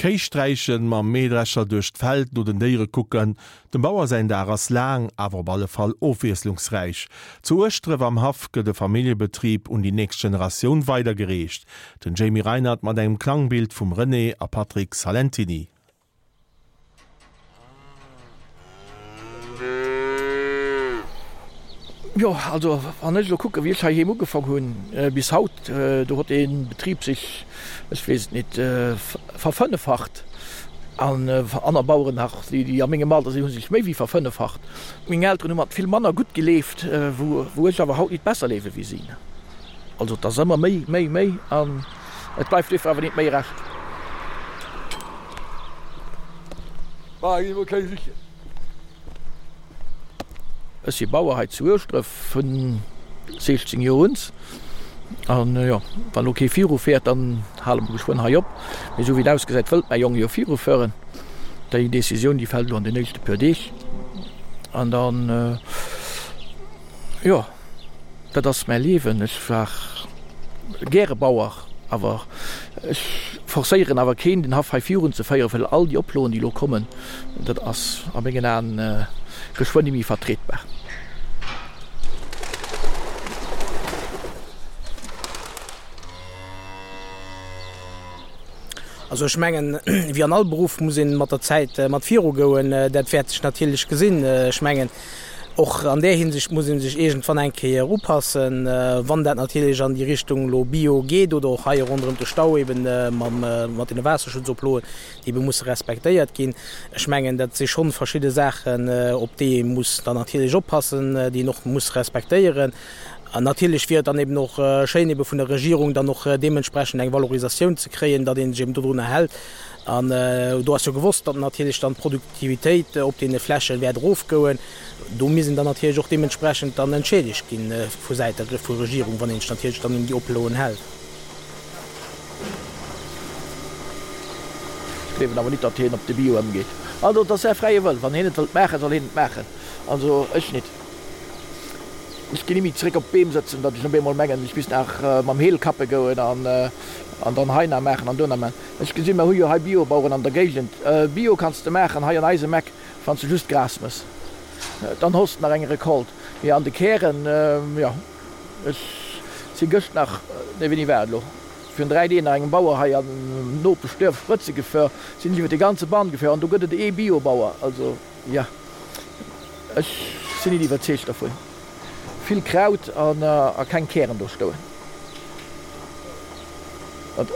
Kéi sträichen, mam Mähdrescher duerch d'Feld no den Déiere kucken, dem Bauer säin Dag ass laang, awer op alle Fall ofwiesslungsräich. Zu Ueschdref am Haff gëtt e Familljebetrib un déi nächst Generatioun weidergereecht. Den Jamie Reinert mat engem Klangbild vum René a Patrick Salentiny. Jo, also wann ech elo kucken, wéi ech heiheem ugefong hunn bis haut, do huet dee Betrib sech, ech weess et nit, verfënneffacht. An aner Baueren nach, déi a mengem Alter sinn, hu sech méi wéi verfënneffacht. Meng Elteren hu mat vill manner gutt geleeft, wou ech awer haut nit besser leewe wéi si. Also et ass ëmmer méi, méi, méi an et bleift duerfir awer nit méi Rescht. Ech si Bauer hei zu Ueschdref vun 16 Joer un. An jo, wann elo kee viru féiert, dann hale mer geschwënn hei op. Mee esou wéi et ausgesäit, wëllt mäi Jong jo virufueren. Déi Decisioun, déi fält elo an den nächste puer Deeg. An dann, jo. Dat ass mäi Liewen. Ech war gäre Bauer, awer ech forcéieren awer keen, den Haff hei virun ze féieren, well all déi Oploen, déi elo kommen, dat ass a mengen Aen geschwënn ni méi vertrietbar. Also ech mengen, wéi an all Beruff muss ee mat der Zäit mat virugoen. Dat wäert sech natierlech gesinn. Ech mengen, Och an där Hinsicht muss ee sech iergendwann eng Kéier upassen, wann dat natierlech an déi Richtung elo Bio geet oder och hei ronderëm de Stau eben mat deene Waasserschutzoploen, déi ebe musse respektéiert ginn. Ech mengen, dat si schonn verschidde Saachen, op déi ee muss dann natierlech oppassen, déi een och muss respektéieren. An natierlech wier et dann eben och schéin, ebe vun der Regierung dann och deementsprechend eng Valorisatioun ze kréien, datt ee sech eben dodrunner hält. An do ass jo gewosst, datt natierlech dann d'Produktivitéit op deene Fläche wäert erofgoen. Do misst een dann natierlech och deementsprechend dann entschädegt gi vu Säit der vu Regierung, wann een sech natierlech dann un déi Oploen hält. Ech gleewen awer nit, datt hien op de Bio ëmgeet. Also et ass säi fräie Wëll. Wann hien et wëllt maachen, soll hien et maachen. Also ech nit. Ech ginn ni méi zeréck op d'Beem sëtzen, datt ech op eemol mengen, ech misst nach mam Heel kappe goen an dann hei nach maachen an do nach maachen. Ech gesinn, mer hu jo hei Biobaueren an der Géigend. Bio kanns de maachen hei an eisem Eck, wann s de just Gras mëss. Dann hoss de nach eng Recolte. Mee an de Kären, jo, ech si gëscht nach, nee wéini war et elo, virun 3 Deeg nach engem Bauer hei am Nopeschduerf Sprëtze gefuer, sinn ech iwwer de ganze Bann gefuer an do gëtt et ee Biobauer. Also, jo, ech sinn nit iwwerzeegt dervun. Vill Kraut a keng Kären do stoen.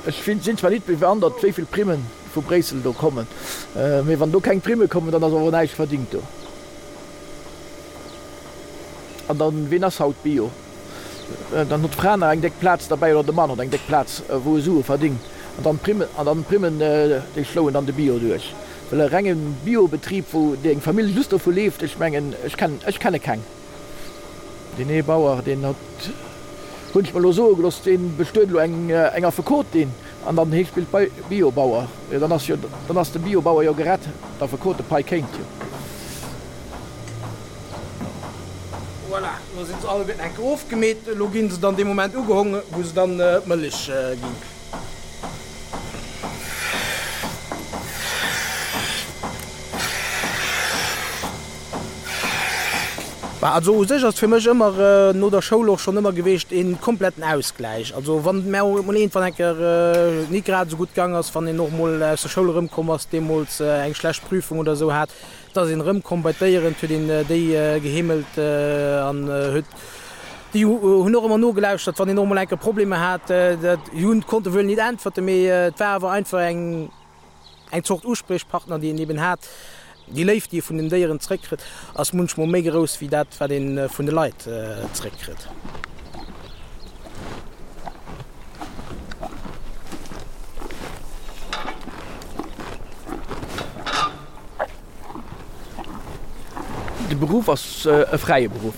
Ech sinn zwar nit bewandert wéi vill Primmen vu Bréissel do kommen, mee wann do keng Primme kommen, dann ass awer näischt verdingt do. An dann, ween ass haut Bio? Dann huet d'Fra nach eng déck Plaz derbäi oder de Mann huet eng déck Plaz wou e Sue verdingt. An dann d'Primmen, an dann d'Primmen déi schloen dann de Bio duerch. Well e renge Biobetrib wou déi eng Famill just dovu leeft, ech mengen ech kennen, ech kenne keng. Deen ee Bauer, deen huet, hunn ech mer elo soe gelooss, dee bestuet elo eng eng Affekotin an dann hee spillt bei Biobauer. Jo, dann ass jo, dann ass de Biobauer jo gerett, d'Affekotepai kéint jo. Voilà, elo sinn se alleguerten eng Kéier ofgemeet. Elo gi se dann dee Moment ugehong, wou se dann d'Mëllech ginn. Also u sech ass fir mech ëmmer no der Schoul och schonn ëmmer geweecht een kompletten Ausgläich. Also wann et mär och emol iergendwann eng Kéier nit grad esou gutt gang ass, wann een och emol aus der Schoul erëmkomm ass, deemools eng schlecht Prüfung oder esou hat, da ass een erëmkomm bei d'Déieren, huet een déi geheemelt an huet déi hunn och ëmmer nogelauschtert, wann een och emol eng Kéier Problemer hat. Dat hunn konnte wuel nit äntwerten, mee et war awer einfach eng. Eng Zort Uspriechpartner, déi een eben hat. Déi Léift, déi ee vun den Déieren zréckkritt, ass munchmol méi grouss wéi dat, wat ee vun de Leit zréckkritt. De Beruff ass e fräie Beruff.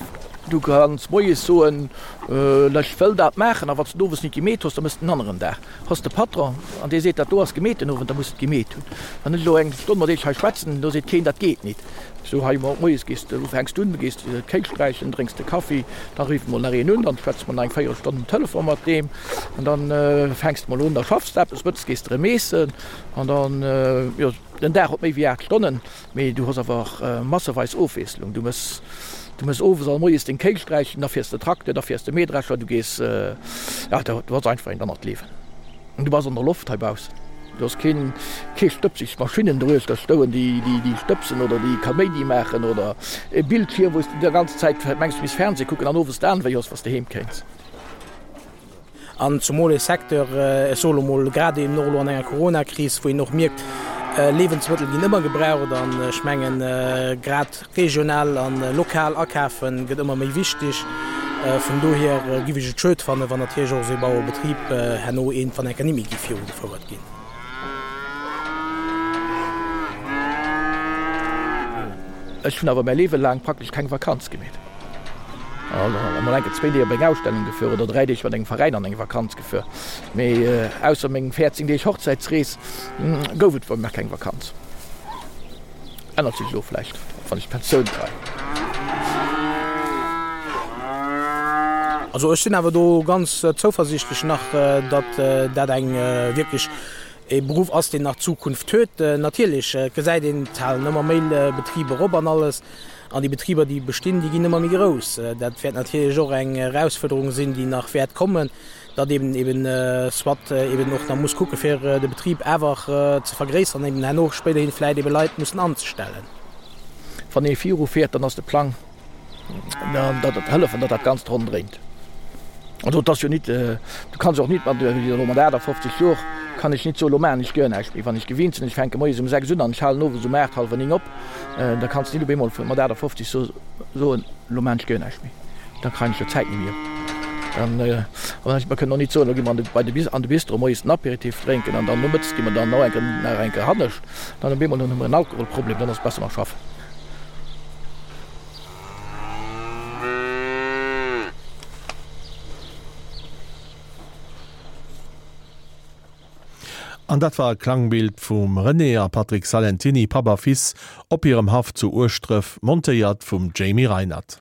Du kanns moies soen, Ech wëll dat maachen, a wann s de et owes nit gemeet hues, da mëss de en aneren Dag. Hues de Patron an dee seet, dat do ass gemeet den Owend, da muss de et gemeet hunn. Wann ech elo eng Stonn mat iech hei schwätzen, do seet keen, dat geet nit. Sou hei moies gees de, fänks du un, gees d'Kéi sträichen, drénks de Kaffi, da rifft mol nach een un, dann schwätze mer nach eng Véierelstonn um Telefon mat deem an dann fänks de mol un, da schaffs de eppes, mëttes gees de erëm eessen an dann, jo, den Dag huet méi wéi 8 Stonnen. Mee du hues awer och masseweis Ofwiesslung. Du mëss, du mëss owes an moies deng Kéi sträichen, da fiers de Trakter, da fiers de Mähdrescher, du gees, ja, du hues einfach eent anert Liewen. An du bass an der Loft heibaussen. Du hues keen, kee stëbseg Maschinnen doruechter stouen, déi, déi, déi stëbsen oder déi Kaméidi maachen oder e Bildschierm, wou s du déi ganz Zäit mengs, du misst Fernseh kucken an owes d'Aen wéi hues, wa s de heem kéins. An zumol ee Secteur, ech soe lo mol, grad eben och elo an enger Coronakris, wou een och mierkt, Liewensmëttel ginn ëmmer gebraucht an ech mengen, grad regional a lokal akafe gëtt ëmmer méi wichteg. Vun dohier giff ech et schued fannen, wann natierlech och esou ee Bauerebetrib herno iergendwann eng Kéier net méi giff virugefouert ginn. Ech hunn awer mäi Liewe laang praktesch keng Vakanz gemeet. Emol enke zwéi Deeg op eng Ausstellung gefuer oder 3 Deeg mat engem Veräin an eng Vakanz gefuer. Mee ausser mengem 14 Deeg Hochzäitsrees gouf et bei mir keng Vakanz. Ännert sech elo vläicht, wann ech d'Pensioun kréien. Also ech sinn awer do ganz zouversiichtlech nach, datt dat eng wierklech e Beruff ass, deen nach Zukunft huet. Natierlech gesäit een, et halen ëmmer méi Betriber op an alles. An déi Betriber, déi bestinn, déi ginn ëmmer méi grouss. Dat wäert natierlech och eng Erausfuerderung sinn, déi nach wäert kommen, datt eben eben soit eben och nach muss kucke fir de Betrib awer ze vergréisseren, eben herno spéiderhin vläicht ebe Leit mussen anzestellen. Wann ee viru fiert, dann ass de Plang, datt et hëllefen, datt dat Ganzt ronn dréint. Also et ass jo nit, du kanns och nit mat, elo mat 58 Jor kann ech nit soen, elo maachen ech guer näischt méi. Wann ech gewinnt sinn, ech fänke moies um 6 un an ech halen owes um 8, hallwer 9 op, da kanns de nit op eemol mat 58 soen, elo maachen ech guer näischt méi. Da kréien ech jo d'Zäit net méi op. Dann, mer kënnen och nit soen, elo gi mer bei de, an de Bistro moies den Apéritif drénken an dann nomëttes gi mer dann nach eng, nach eng Kéier hannescht. Dann op eemol hunn mer en Alkoholproblem, dann ass et besser mer schaffen. An dat war e Klangbild vum René a Patrick Salentiny, Papp a Fils, op hirem Haff zu Ueschdref, montéiert vum Jamie Reinert.